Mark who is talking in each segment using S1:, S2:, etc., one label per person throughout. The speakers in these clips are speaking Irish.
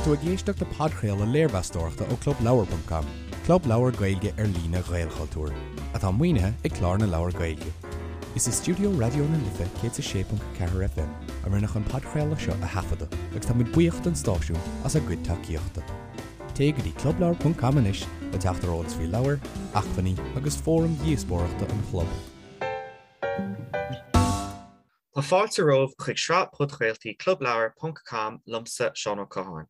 S1: Tá tú ag éisteacht le podchraoladh léirmheastóireachta ó ClubLeabhar.com, club leabhar Gaeilge ar líne Ghaelchultúir, atá maoinithe ag Clár na Leabhar Gaeilge. Is i stiúideo Raidió na Life 106.4 FM a rinneadh an podchraoladh seo a thaifeadadh agus tá muid buíoch don stáisiún as a gcuid tacaíochta. Téigh go dtí clubleabhar.com anois le teacht ar eolas faoi leabhair, acmhainní agus fóraim dhíospóireachta an chlub.
S2: Tá fáilte romhaibh chuig sraith podchraoltaí Clubleabhar ponc com liomsa, Seán Ó Catháin.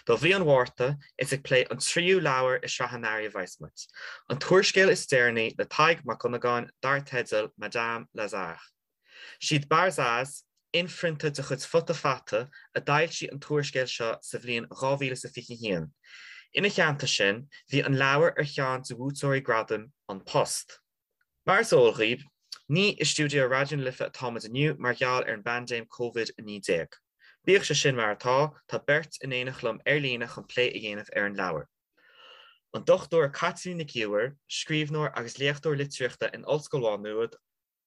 S2: Do mhí an Mhárta, is ag plé an tríú leabhar i sraith an earraigh a bheas muid, an t-úrscéal is deireanaí le Tadhg Mac Dhonnagáin dar teideal Madame Lazare. Siad Barzaz, inphrionta de chuid Futa Fata, a d'fhoilsigh an t-úrscéal seo sa bhliain 2021. Ina theannta sin, bhí an leabhar ar cheann de bhuaiteoirí gradaim An Post. Mar is eol dhaoibh, ní i stiúideo Raidió na Life atá muid inniu mar gheall ar an bpaindéim Covid-19. Bíodh sé sin mar atá, tá beirt in éineacht liom ar líne chun plé a dhéanamh ar an leabhar. An Dr Caitlín Nic Íomhair, scríbhneoir agus léachtóir litríochta in Ollscoil Mhá Nuad,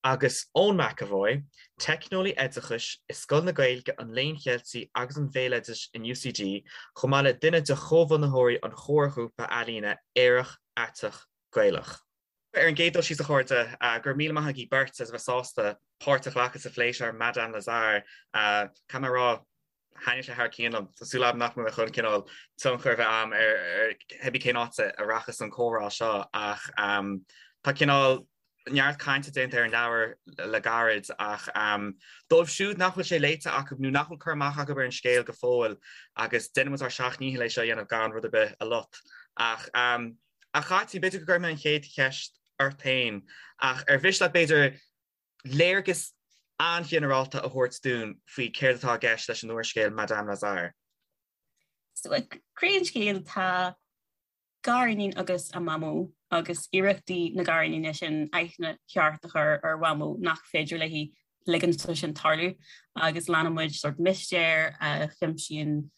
S2: agus Eoin McEvoy, teicneolaí oideachais i Scoil na Gaeilge, an Léinn Cheiltigh agus an Bhéaloidis in UCD, chomh maith le duine de chomhbhunaitheoirí an chomharghrúpa ealaíne Aerach Aiteach Gaelach. Ar an gcéad dul síos, a chairde, go raibh míle maith agaibh beirt as a bheith sásta páirt a ghlacadh sa phlé seo ar Madame Lazare. Caithfidh mé a rá, thaitnigh sé thar cionn liom. Tá súil agam nach mbeidh mé chun cineál tionchar a bheith agam ar cibé cén áit a rachas an comhrá seo ach tá cineál neart cainte déanta ar an leabhar le gairid ach dóibh siúd nach bhfuil sé léite acu nó nach bhfuil cur amach acu ar an scéal go fóill agus déanfaidh muid ár seacht ndícheall é seo a dhéanamh gan rud ar bith a lot ach A Chaitlín, b'fhéidir go gcuirfidh mé an chéad cheist ort féin, ach ar mhiste leat, b'fhéidir, léargas an-ghinearálta a thabhairt dúinn faoi céard atá i gceist leis an úrscéal Madame Lazare?
S3: So, ag croí an scéil tá gariníon agus a mamó agus iarrachtaí na gariníne sin aithne cheart a chur ar mhamó nach féidir léi ligean dó sin tarlú agus leanann muid sórt mistéir a chuimsíonn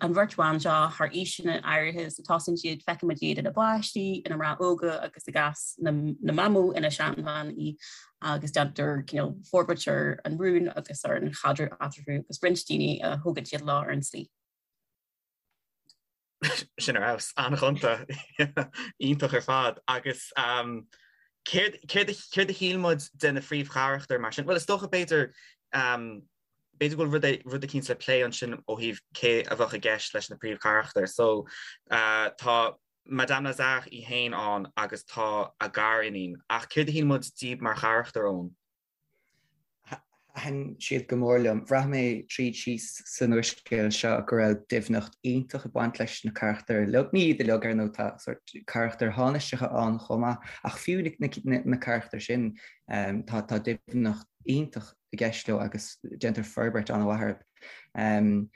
S3: an bheirt bhan seo thar aoiseanna áirithe so tosaíonn siad, feiceann muid iad ina bpáistí, ina mná óga agus i gcás na mamó ina seanbhean í agus déantar cineál forbairt ar an rún agus ar an chaidreamh eatarthu agus roinnt daoine a thógann siad leo ar an tslí.
S2: Sin ar fheabhas, an-ghonta, iontach ar fad agus céard céard a shíl muid de na phríomhcharachtair mar sin? Bhuel is dócha b'fhéidir B'fhéidir go bhfuil rud eicínt le plé ansin ó thaobh cé a bheadh i gceist leis na príomhcharachtair. So, tá Madame Lazare í féin ann agus tá a gariníon. Ach céard a shíl muid díobh mar charachtair, Eoin?
S4: Thaitin siad go mór liom. Bhraith mé tríd síos san úrscéal seo go raibh doimhneacht iontach ag baint leis na carachtair uilig. Ní iad uilig, ar ndóigh, tá sórt carachtair thánaisteacha ann chomh maith, ach fiú na carachtair sin, tá doimhneacht iontach i gceist leo agus déantar forbairt an-mhaith orthu.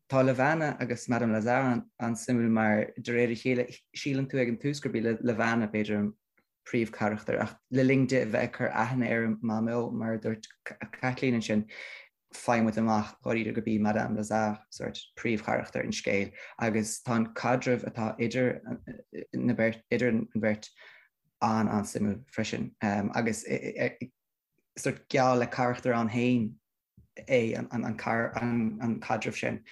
S4: Tá Levana agus Madame Lazare an-suimiúil mar de réir a chéile síleann tú ag an tús gurb í Levana b'fhéidir an príomhcharachtar ach le linn di a bheith ag cur aithne ar a mamó, mar a dúirt Caitlín ansin, faigheann muid amach dháiríre gurb í Madame Lazare sórt príomhcharachtar an scéil agus tá an caidreamh atá idir na beirt, idir an bheirt an-an-suimiúil freisin agus sórt geall le carachtar ann féin é an caidreamh sin.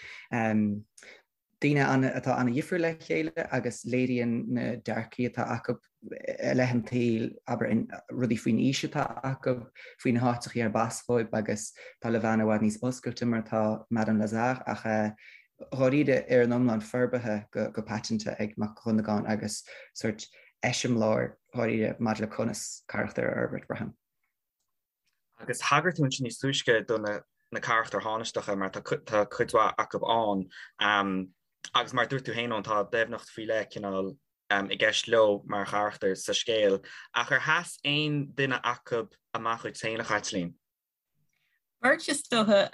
S4: Daoine atá an-dhifriúil le chéile agus léiríonn na dearcaí atá acu i leith an tsaoil, abair, rudaí faoin aois atá acu, faoi na háiteachaí arb as dhóibh agus tá Levana i bhfad níos oscailte mar atá Madame Lazare ach dháiríre ar an iomlán forbartha go paiteanta ag Mac Dhonnagáin agus sórt eiseamláir dháiríre maidir le conas carachtar a fhorbairt, braithim.
S2: Agus thagair tú ansin níos túisce do na na carachtair thánaisteacha mar tá tá cuid mhaith acu ann um, agus mar dúirt tú féin Eoin tá doimhneacht faoi leith cineál um, i gceist leo mar charachtair sa scéal. Ach ar sheas aon duine acu amach dhuit féin a Chaitlín?
S3: Beirt is dócha.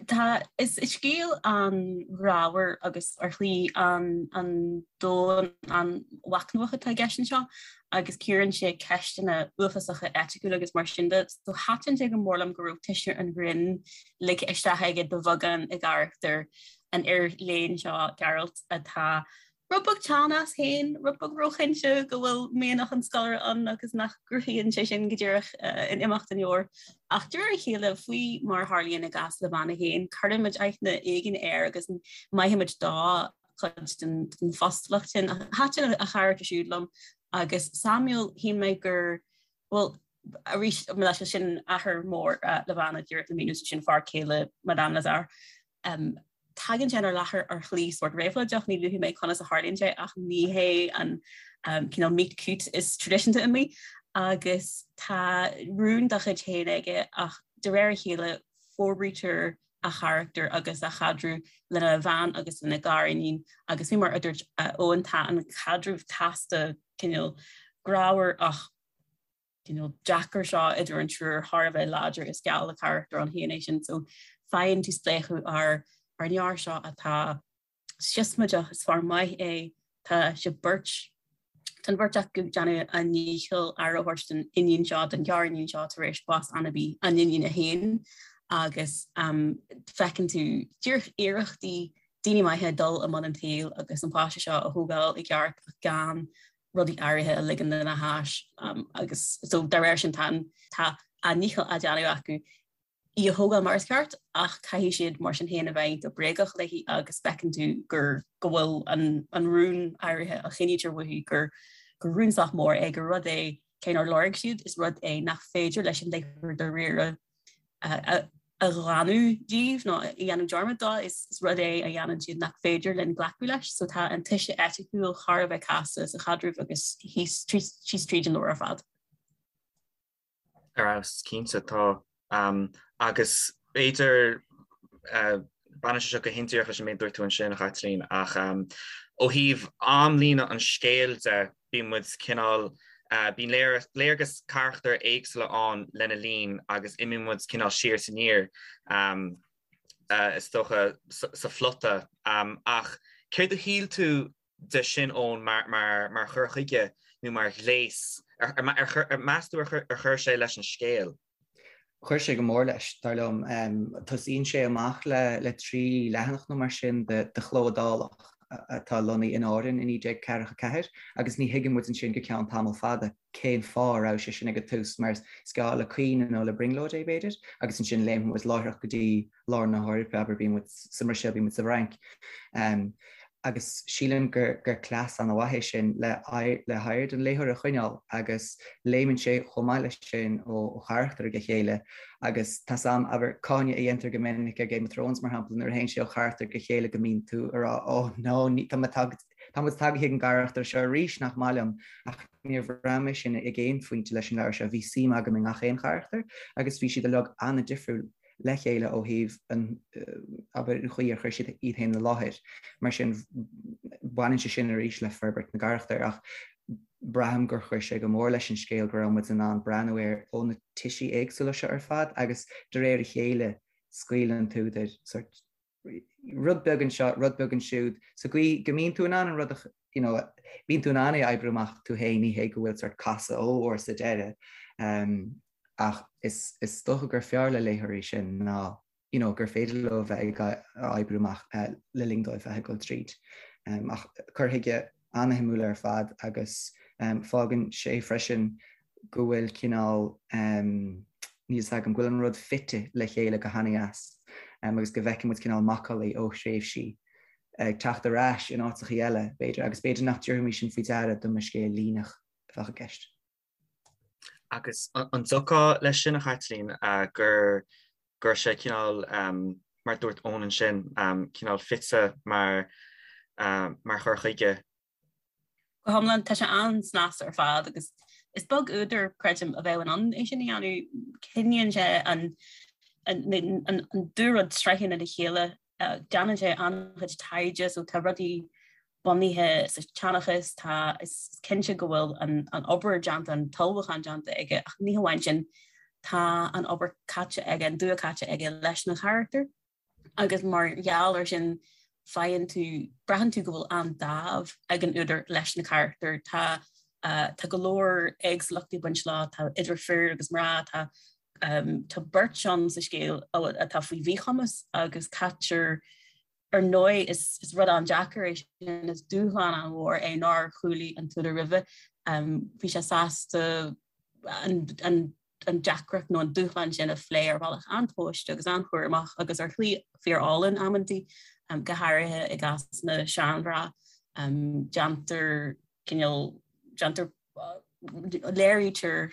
S3: Tá, is scéal an-ghrámhar agus ar shlí an-domhain an-mhachnamhach atá i gceist anseo agus cíorann sé ceisteanna uafásacha eiticiúla agus mar sin de. So thaitin sé go mór liom go raibh tuiscint an ghrinn ligthe isteach aige de bheagán i gcarachtar an fhir léinn seo, Gearailt, atá. rud beag teann as féin, rud beag róchinnte go bhfuil mianach an scoláire ann agus nach gcruthaíonn sé sin go díreach in imeacht an leabhair. Ach de réir a chéile, faoi mar a tharlaíonn i gcás Levana féin, cuireann muid aithne éigin air agus maithimid dó cuid den phostalacht sin. Thaitin a charachtar siúd liom agus Samuel, shíl mé gur, bhuel, arís, leis sin athair mór Levana díreach le míniú, sin fear céile Madame Lazare. Tagann sé inár láthair ar shlí sórt réabhlóideach, ní luafaidh mé conas a tharlaíonn sé ach ní hé an cineál meet cute is traidisiúnta amuigh agus tá rún dá chuid féin aige ach de réir a chéile forbraítear a charachtar agus a chaidreamh lena bhean agus lena ghariníon agus faoi mar a dúirt Eoin tá an caidreamh casta cineál grámhar ach cineál deacair seo idir an triúr thar a bheith láidir is geall le carachtar ann féin é sin so faigheann tú spléachadh ar ar an fhear seo atá siosmaideach, is fear maith é, tá siad beirt, tá an bheirt acu ag déanamh a ndícheall aire a thabhairt don iníon seo, don ghariníon seo tar éis bás anabaí a n-iníne féin agus feiceann tú díreach iarrachtaí daoine maithe dul i mbun an tsaoil agus an páiste seo a thógáil i gceart ach gan rudaí áirithe a ligean lena hais agus so dá réir sin tá tá a ndícheall á déanamh acu í a thógáil mar is ceart ach caithfidh siad mar sin féin a bheith iontach bréagach léi agus feiceann tú gur go bhfuil an an rún áirithe a choinnítear uaithi gur gur rún sách mór é gur rud é cé nár lorg siad is rud é nach féidir leis an léitheoir dáiríre a ghlanadh díobh nó a dhéanamh dearmad dó, is rud é a dhéanann siad nach féidir linn glacadh leis. So tá an toise eiticiúil thar a bheith casta sa chaidreamh agus thíos síos tríd an leabhar ar fad.
S2: Ar fheabhas, cinnte tá. Agus b'fhéidir, baineann sé seo go hindíreach leis an méid a dúirt tú ansin, a Chaitlín, ach ó thaobh amlíne an scéil de, bíonn muid cineál, bíonn léargas carachtair éagsúla ann lena linn agus imíonn muid cineál siar is aniar, is dócha, sa phlota. Ach céard a shíl tú de sin, Eoin, mar chur chuige nó mar ghléas? Ar meas tú ar chuir sé leis an scéal?
S4: Chuir sé go mór leis, dar liom. Tosaíonn sé amach le 3 leathanach nó mar sin de chló iodálach atá lonnaithe in Árainn i 1944 agus ní thuigeann muid ansin go ceann tamall fada cén fáth a raibh sé sin ag an tús mar is geall le caoineadh nó le brionglóid é b'fhéidir agus ansin léimeann muid láithreach go dtí lár na hEorpa, abair, bíonn muid sa mBruiséil, bíonn muid sa bhFrainc. Agus sílim gur cleas an-mhaith é sin le haird an léitheora a choinneáil agus léimeann sé chomh maith leis sin ó charachtar go chéile agus tá's a'm, abair, cáineadh a dhéantar go minic ar Game of Thrones mar shampla nuair a théann sé ó charachtar go chéile go mbíonn tú ag rá oh no, tá muid tagtha chuig an gcarachtar seo arís, nach maith liom ach níor bhraith mé sin ag aon phointe leis an leabhar seo, bhí suim agam i ngach aon charachtar agus bhí siad uilig an-difriúil. le chéile ó thaobh an, abair, an chaoi ar chuir siad iad féin i láthair. Mar sin, baineann sé sin arís le forbairt na gcarachtar ach braithim gur chuir sé go mór leis an scéal go raibh muid in ann breathnú air ó na toisí éagsúla seo ar fad agus de réir a chéile scaoileann an t-údar sort rud beag anseo, rud beag ansiúd, sa gcaoi go mbíonn tú in ann an rud a, you know, bíonn tú in ann é a oibriú amach tú féin, ní hé go bhfuil sort casadh ollmhór sa deireadh. Um, ach is, is dócha gur fearr le léitheoirí sin ná, you know, gur féidir leo bheith ag oibriú amach uh, le linn dóibh bheith ag dul tríd. Um, ach cur chuige an-shuimiúil ar fad agus um, fágann sé freisin go bhfuil cineál, níl fhios agam, go bhfuil an rud fite le chéile go han-dheas agus go bhfeiceann muid cineál macallaí ó thréimhsí ag teacht ar ais in áiteachaí eile, b'fhéidir, agus b'fhéidir nach dtabharfaimis sin faoi deara dá mba scéal líneach a bheadh i gceist.
S2: Agus an dtiocfá leis sin, a Chaitlín, gur go raibh sé cineál, mar a dúirt Eoin ansin, cineál fite mar mar chur chuige
S3: Go hiomlán, tá sé an-snasta ar fad agus is beag údar, creidim, a bheadh in ann é sin a dhéanamh. Coinníonn sé an dá rud sraitheanna le chéile, déanann sé an-chuid taighde so tá rudaí bunaithe sa tseanchas, tá, is cinnte go bhfuil an obair déanta, an t-ullmhúchán déanta aige ach ní hamháin sin, tá an obair caite aige, an dua caite aige leis na carachtair. agus mar gheall ar sin faigheann tú, braitheann tú go bhfuil an-dáimh ag an údar leis na carachtair. Tá tá go leor éagsúlachtaí ag baint leo, tá idir fir agus mná, tá tá beirt ann sa scéal atá faoi mhíchumas agus caitear. Ar ndóigh, is rud an-deacair é sin, is dúshlán an-mhór é nár chúlaigh an t-údar roimhe. Bhí sé sásta an deacracht nó an dúshlán sin a phlé ar bhealach an-tomhaiste agus an-chúramach agus ar shlí fíor-álainn amantaí, go háirithe i gcás na seanmhná. Déantar cineál, déantar, léirítear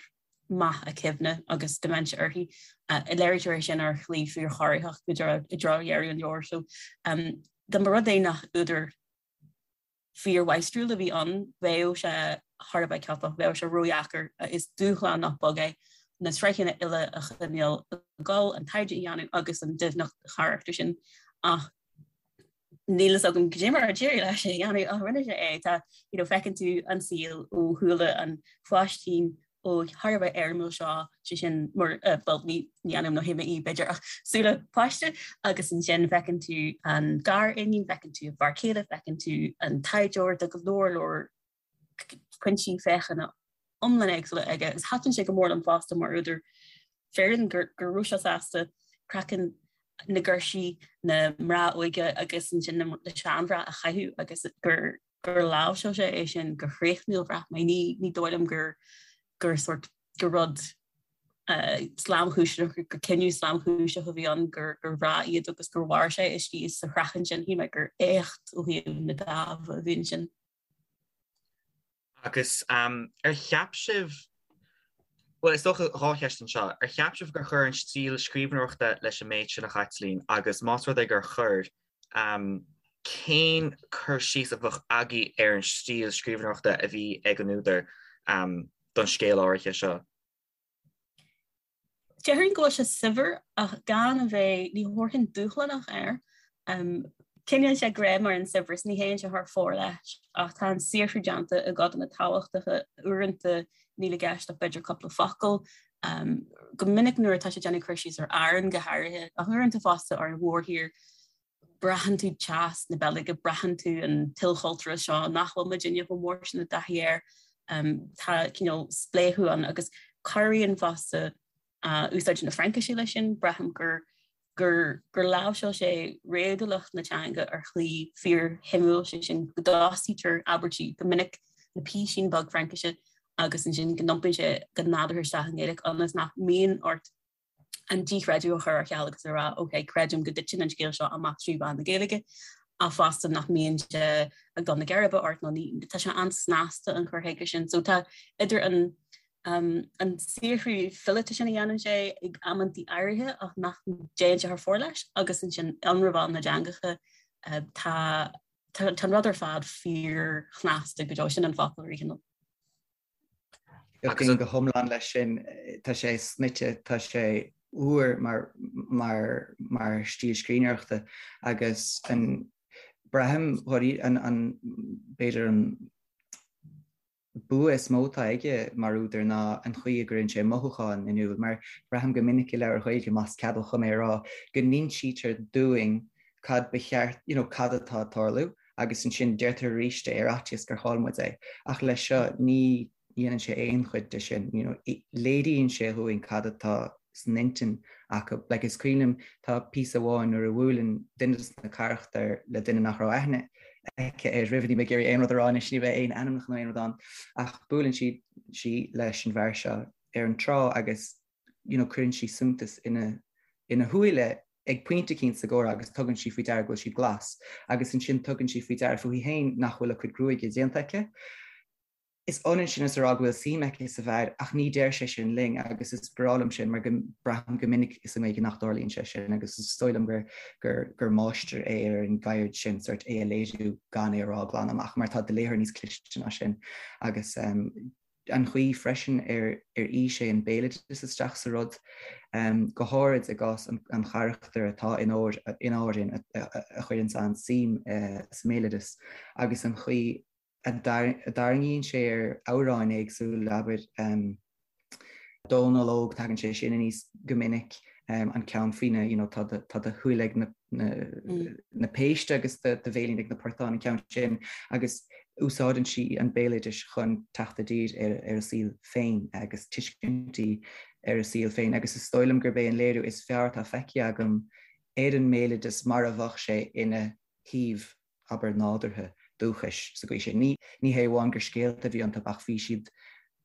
S3: meath a cuimhne agus dementia uirthi. Léirítear é sin ar shlí fíorchorraitheach i dtreo dheireadh an leabhair. So dá mba rud é nach údar fíormháistriúil a bhí ann, bheadh sé thar a bheith ciotach, bheadh sé ródheacair. Is dúshlán nach beag é na sraitheanna uile a choinneáil ag dul, an taighde a dhéanamh agus an doimhneacht charachtair sin. Ach níl fhios agam cad é mar a d'éirigh leis é a dhéanamh ach rinne sé é. Tá, you know, feiceann tú an saol ó shúile an pháistín óig thar a bheith éirimiúil seo, sé sin mar, eh, bhuel, ní, ní ainm nó théama í b'fhéidir ach súile páiste agus ansin feiceann tú an gar-iníon, feiceann tú an fear céile, feiceann tú an taighdeoir, tá go leor leor pointí féachana iomlán éagsúla aige agus thaitin sé go mór liom fosta mar údar fireann go raibh sé sásta craiceann na girsí, na mná óige agus ansin na seanmhná a chaitheamh agus gur gur láimhseáil sé é sin go hréachmúil bhraith mé. Ní ní dóigh liom gur gur sort gur rud slamchúiseach gur cinneadh slamchúiseach a bhí ann gur gur bhreá iad agus gur mhair sé istigh sa chraiceann sin. Shíl mé gur éacht ó thaobh na dáimhe a bhí ansin.
S2: Agus ar cheap sibh, bhuel, is dócha 2 cheist anseo, ar cheap sibh gur chuir an stíl scríbhneoireachta leis an méid sin a Chaitlín agus más rud é gur chuir, cén cur síos a bheadh agaibh ar an stíl scríbhneoireachta a bhí ag an údar don scéal áirithe seo?
S3: Déarfainn go bhfuil sé saibhir ach gan a bheith, ní thabharfainn dúshlánach air. Coinníonn sé greim ar an saibhreas, ní théann sé thar fóir leis ach tá an saothrú déanta i gcodanna tábhachtacha, uaireanta níl i gceist ach b'fhéidir cúpla focal. Go minic nuair atá sé ag déanamh cur síos ar Árainn go háirithe ach uaireanta fosta ar an mhórthír, braitheann tú teas na Beilge, braitheann tú an t-ilchultúrachas seo nach bhfuil muidinne chomh mór sin i dtaithí air. Tá cineál spléachadh ann agus cabhraíonn fosta úsáid na Fraincise leis sin, braithim gur gur gur láimhseáil sé réadúlacht na teanga ar shlí fíorshuimiúil, sé sin go dtosaítear abairtí go minic le písín beag Fraincise agus ansin go n-iompaíonn sé go nádúrtha isteach i nGaeilge ionas nach mbíonn ort an díchreideamh a chur ar ceal agus a rá ok, creidim go dtiteann an scéal seo amach trí mheán na Gaeilge ach fosta nach mbíonn sé ag dul na geirbe ort nó ní, tá sé an-snasta an cur chuige sin. So tá idir an um, an saothrú fileata sin a dhéanann sé ag amantaí áirithe ach nach dtéann sé thar fóir leis agus ansin ionramháil na dteangacha uh, tá tá an rud ar fad fíorshnasta go deo sin an focal riachtanach.
S4: Aontaím go hiomlán leis sin. Tá sé snoite, tá sé úr mar mar mar stíl scríbhneoireachta agus an braithim an an b'fhéidir an bua is mó atá aige mar údar ná an chaoi a gcuireann sé mothúcháin in iúl mar braithim go minic i leabhair Ghaeilge, más ceadmhach dhom é a rá, go n-insítear dúinn cad ba cheart, you know, cad atá ag tarlú agus ansin deirtear arís é ar fhaitíos gur chaill muid é. Ach leis seo ní dhéanann sé aon chuid de sin, you know, léiríonn sé dhúinn cad atá san intinn acu. Like, is cuimhin liom, tá píosa amháin nuair a bhuaileann duine de na carachtair le duine nach raibh aithne aici air roimhe, níl mé ag iarraidh aon rud a rá anois, ní bheidh aon ainmneacha nó aon rud ann, ach buaileann sí sí leis an bhfear seo ar an trá agus you know, cuireann sí suntas ina ina shúile ag pointe eicínt sa gcomhrá agus tugann sí faoi deara go bhfuil siad glas agus ansin tugann sí faoi deara fúithi féin nach bhfuil a cuid gruaige déanta aici. Is ionann sin is a rá go bhfuil suim aici sa bhfear ach ní deir sé sin linn agus is breá liom sin mar go braithim go minic sa nGaeilge nach dtarlaíonn sé sin agus is dóigh liom gur gur gur máistir é ar an gceird sin sort é a léiriú gan é a rá glan amach mar tá do léitheoir níos cliste ná sin agus um, an chaoi freisin ar ar fhí sé an béaloideas isteach sa rud, go háirid i gcás an charachtair atá in Árainn a chuireann an-suim sa mbéaloideas agus an chaoi a dtarraingíonn sé ar amhráin éagsúla, abair, Dónal Óg, tagann sé sin aníos go minic, an ceann faoina, you know, tá do shúile ag na na péiste agus do bhéilín ag na portáin, an ceann sin, agus úsáideann sí an béaloideas chun teacht i dtír ar a saol féin agus tuiscintí ar a saol féin agus is dóigh liom gurb é an léiriú is fearr atá feicthe agam ar an mbéaloideas mar a bheadh sé ina. thaobh, abair, nádúrtha, dúchais sa gcaoi sin. Ní ní hé amháin gur scéalta a bhí iontu ach bhí siad,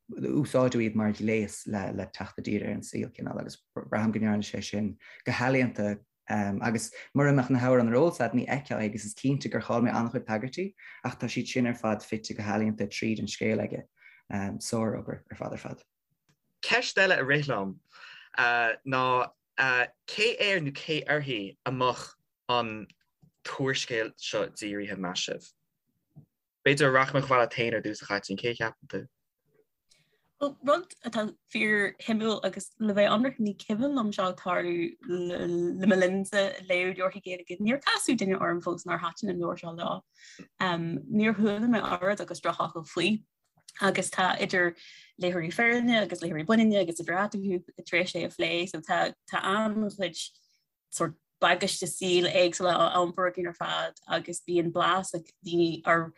S4: úsáideadh iad mar ghléas le le teacht i dtír ar an saol, cineál, agus braithim go ndearna sé sin go healaíonta agus mura mbeadh na hamhráin ar eolas agat ní fheicfeá é agus is cinnte gur chaill mé an-chuid tagairtí ach tá siad sin ar fad fite go healaíonta tríd an scéal aige. Sárobair ar fad ar fad.
S2: Ceist eile a rith liom ná cé air nó cé uirthi a mbeadh an t-úrscéal seo dírithe, meas sibh? B'fhéidir rachaidh mé chomh fada leat féin ar dtús, a Chaitlín, cé a cheapann tú?
S3: Bhuel, rud atá fíor-shuimiúil agus le bheith ionraic ní cuimhin liom seo ag tarlú le mo linnse léamh leabharthaí Gaeilge. Níor casadh duine orm fós nár thaitin an leabhar seo leo. Níor chuala mé oiread agus drochfhocal faoi. Agus tá idir léitheoirí firinne agus léitheoirí baininne agus idir eatarthu tar éis é a phlé, so tá tá an-chuid sórt bagáiste saoil éagsúla á iompar againn ar fad agus bíonn blas ag daoine ar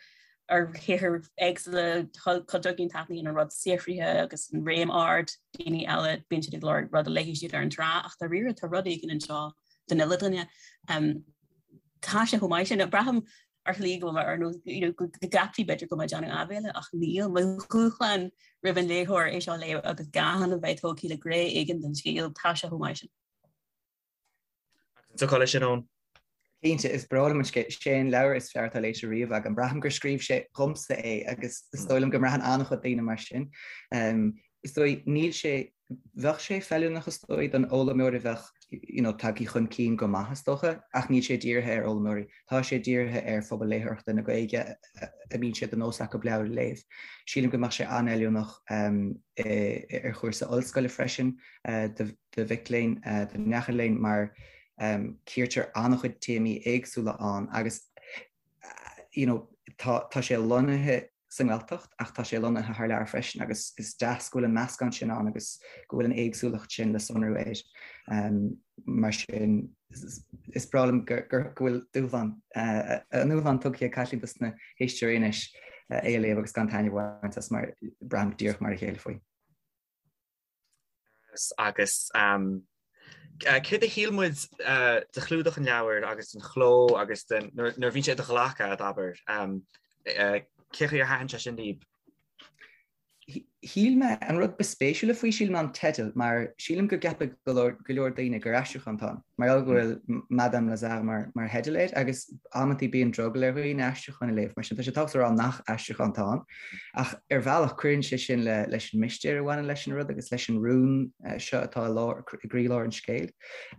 S3: ar shaothair éagsúla, cuid againn taitníonn an rud saothraithe agus an réim ard, daoine eile bíonn siad ag lorg rud a léifidh siad ar an trá ach dáiríre tá rud éigin anseo don uile dhuine. Tá sé chomh maith sin, braithim ar shlí go bhfuil mé ar nós you know go gceapfaí b'fhéidir go bhfuil mé ag déanamh áibhéile ach níl. Mo dhúshlán roimh an léitheoir é seo a léamh agus gan a bheith tógtha le gné éigin den scéal, tá sé chomh maith sin.
S2: Agus an dtiocfá leis sin, Eoin?
S4: Cinnte, is breá liom an scéal. Sé an leabhar is fearr atá léite riamh agam. Braithim gur scríobh sé dhomsa é agus is dóigh liom go mbraitheann an-chuid daoine mar sin. Is dóigh, níl sé, bheadh sé feiliúnach is dóigh don fhoghlaimeoir a bheadh you know tagtha chun cinn go maith is dócha, ach níl sé dírithe ar fhoghlaimeoirí. Tá sé dírithe ar phobal léitheoireachta na Gaeilge a mbíonn sé de nós acu leabhair a léamh. Sílim go mbeadh sé an-fheiliúnach ar chúrsa ollscoile freisin do do mhic léinn, do neacha léinn mar cíortar an-chuid téamaí éagsúla ann agus you know tá tá sé lonnaithe sa nGaeltacht ach tá sé lonnaithe thar lear freisin agus is deas go bhfuil an meascán sin ann agus go bhfuil an éagsúlacht sin le sonrú air. Mar sin is breá liom go bhfuil dúshlán, an dúshlán tugtha ag Caitlín dos na héisteoirí anois é a léamh agus gan taitneamh a bhaint as mar braithim díreach mar a chéile faoi.
S2: Agus céard a shíl muid de chlúdach an leabhair agus den chló agus den, nuair a bhíonn sé i do ghlac agat, abair, cé chaoi ar thaitin sé sin libh?
S4: Shíl mé, an rud ba spéisiúla faoi, sílim, ná an teideal, mar sílim go gceapfadh go leor daoine gur aistriúchán atá ann, mar gheall go bhfuil Madame Lazare mar theideal air, agus amantaí bíonn drogall ar dhaoine aistriúcháin a léamh, mar sin tá sé tábhachtach a rá nach aistriúchán atá ann. Ach ar bhealach, cuireann sé sin leis an mistéir a bhaineann leis an rud agus leis an rún seo atá i lár, i gcroílár an scéil.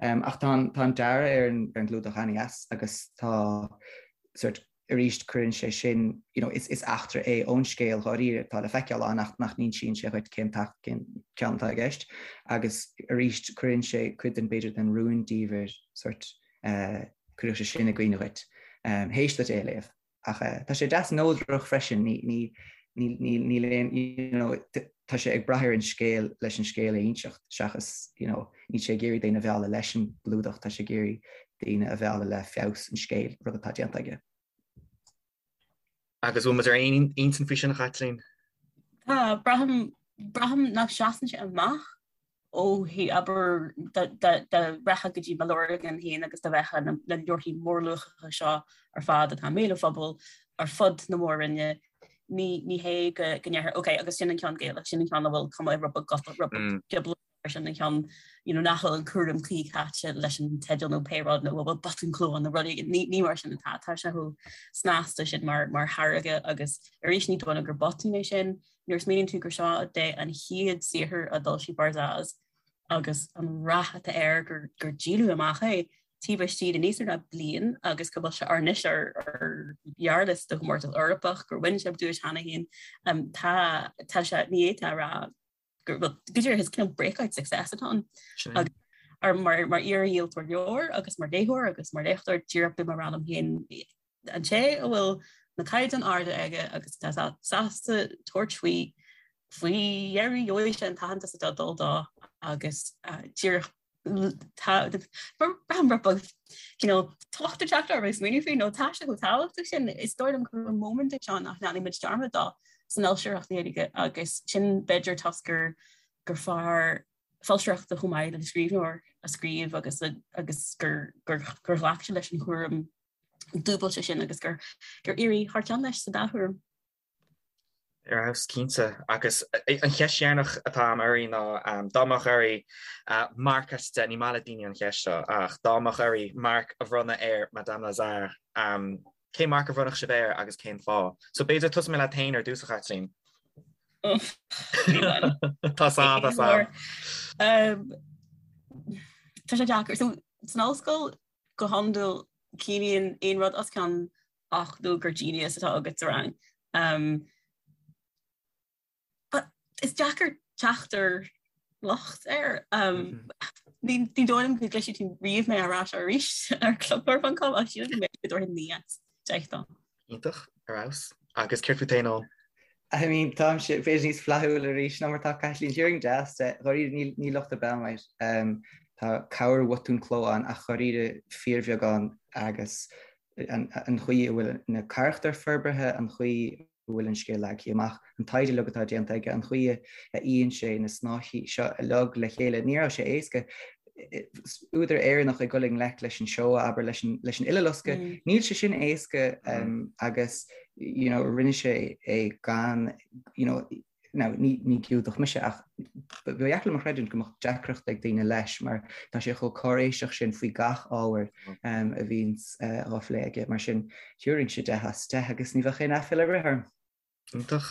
S4: Ach tá an dearadh ar an gclúdach an-dheas agus tá sort, arís cuireann sé sin, you know, is eachtra é ón scéal dháiríre atá le feiceáil ann ach nach n-insíonn sé dhuit cén cén ceann atá i gceist. Agus arís cuireann sé cuid den, b'fhéidir, den rúndiamhair sort, cuirfidh sé sin i gcuimhne dhuit théis duit é a léamh. Ach tá sé deas neodrach freisin, ní, ní, ní, níl aon, you know, tá sé ag brath ar an scéal leis an scéal a inseacht seachas, you know, níl sé ag iarraidh daoine a mhealladh leis an gclúdach, tá sé ag iarraidh daoine a mhealladh le feabhas an scéil, rud atá déanta aige.
S2: Agus bhfuil muid ar aon intinn faoi sin, a Chaitlín?
S3: Tá, braithim, braithim nach seasann sé amach ó thaobh, abair, dá rachfá go dtí mo leabharlann féin agus dá bhfeicfeá na leabharthaí mórluachacha seo ar fad atá i mbéal an phobail ar fud na mór-roinne, ní hé go ndéarfá, ok, agus sin an ceann Gaelach, sin an ceann a bhfuil cuma rud beag Gotach, rud beag gioblach air, sin an ceann you know nach bhfuil an cúram cuí caite leis an teideal nó pé rud nó a bhfuil botún cló ann nó rud éigin, ní mar sin atá, tá sé chomh snasta sin mar tháirge agus arís ní dóigh liom gur botún é sin. Nuair a smaoiníonn tú gur seo é an chéad saothar a d'fhoilsigh Barzaz agus an rath atá air gur gur díoladh amach é taobh istigh de níos mó ná bliain agus go bhfuil sé anois ar ar ghearrliosta do chomórtas Eorpach, gur bhain sé duais cheana féin, tá tá sé ní fhéadfá a rá gur bhuel go díreach is cineál breakout success atá ann. Agus ar mar mar iar-dhíoltóir leabhar agus mar léitheoir agus mar léachtóir díreach bím ag rá liom féin an té a bhfuil na caighdeáin arda aige agus atá sásta tabhairt faoi faoi dheireadh gheobhaidh sé an t-aitheantas atá ag dul dó agus díreach braithim rud beag cineál tocht ag teacht orm ag smaoineamh faoi nó tá sé chomh tábhachtach sin. Is dóigh liom gur móimint é seo nach ndéanfaidh muid dearmad dó san fhoilsitheoireacht Ghaeilge agus sin b'fhéidir toisc gur gur fear foilsitheoireachta chomh maith le scríbhneoir a scríobh agus agus gur gur ghlac sé leis an chúram. dúbailte sin agus gur gur éirigh thar cionn leis sa dá thuairim.
S2: Ar fheabhas, cinnte. Agus an cheist dheireanach atá agam oraibh ná dá mbeadh oraibh marc as 10, ní maith le daoine an cheist seo, ach dá mbeadh oraibh marc a bhronnadh ar Madame Lazare, cén marc a bhronnfadh sibh air agus cén fáth? So b'fhéidir tosóidh mé leat féin ar dtús, a Chaitlín. Tá
S3: tá tá. Tá sé deacair. So san ollscoil go hiondúil ciallaíonn aon rud os cionn 80 gur genius atá agat sa rang. Um, but is deacair teacht ar locht air. Um, mm -hmm. Ní ní dóigh liom go gcloisfidh tú riamh mé á rá seo arís ar clubleabhar.com ach sílim go mbeidh go dtabharfainn 9 as 10
S2: dó. Iontach, ar fheabhas. Agus céard fút féin, Eoin?
S4: I mean, táimse b'fhéidir níos flaithiúla arís ná mar atá Caitlín. Thabharfainn 10 as 10. Dháiríre, níl, níl locht ar bith ann air. Um, tá corrbhotún cló ann ach dháiríre fíorbheagán agus an chaoi a bhfuil na carachtair forbartha, an chaoi a bhfuil an scéal leagtha amach, an taighde uilig atá déanta aige, an chaoi a fhíonn sé na snáithí seo uilig le chéile. Ní raibh sé éasca. Údar Éireannach ag dul i ngleic leis an Shoah, abair, leis an leis an Uileloscadh. Níl sé sin éasca agus you know rinne sé é gan you know Now, ní Giúdach mise ach ba dheacair liom a chreidiúint go mbeadh deacracht ag daoine leis mar tá sé chomh cáiréiseach sin faoi gach ábhar a bhíonns á phlé aige. Mar sin, thabharfainnse 10 as 10 agus ní bheadh aon aiféala ar bith orm.
S2: Iontach.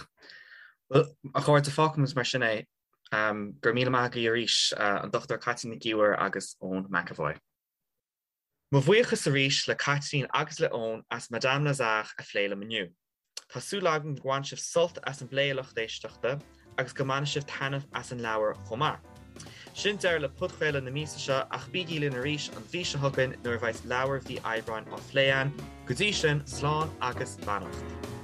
S2: Bhuel, a chairde, fágfaimid mar sin é. Go raibh míle maith agaibh arís, an Dr Caitlín Nic Íomhair agus Eoin McEvoy. Mo bhuíochas arís le Caitlín agus le Eoin as Madame Lazare a phlé liom inniu. Tá súil agam gur bhain sibh sult as an bplé a lucht éisteachta agus go mbainfidh sibh taitneamh as an leabhar chomh maith. Sin deireadh le podchraoladh na míosa seo ach bígí linn arís an mhí seo chugainn nuair a bheidh leabhar mhí Aibreáin á phlé againn. Go dtí sin, slán agus beannacht.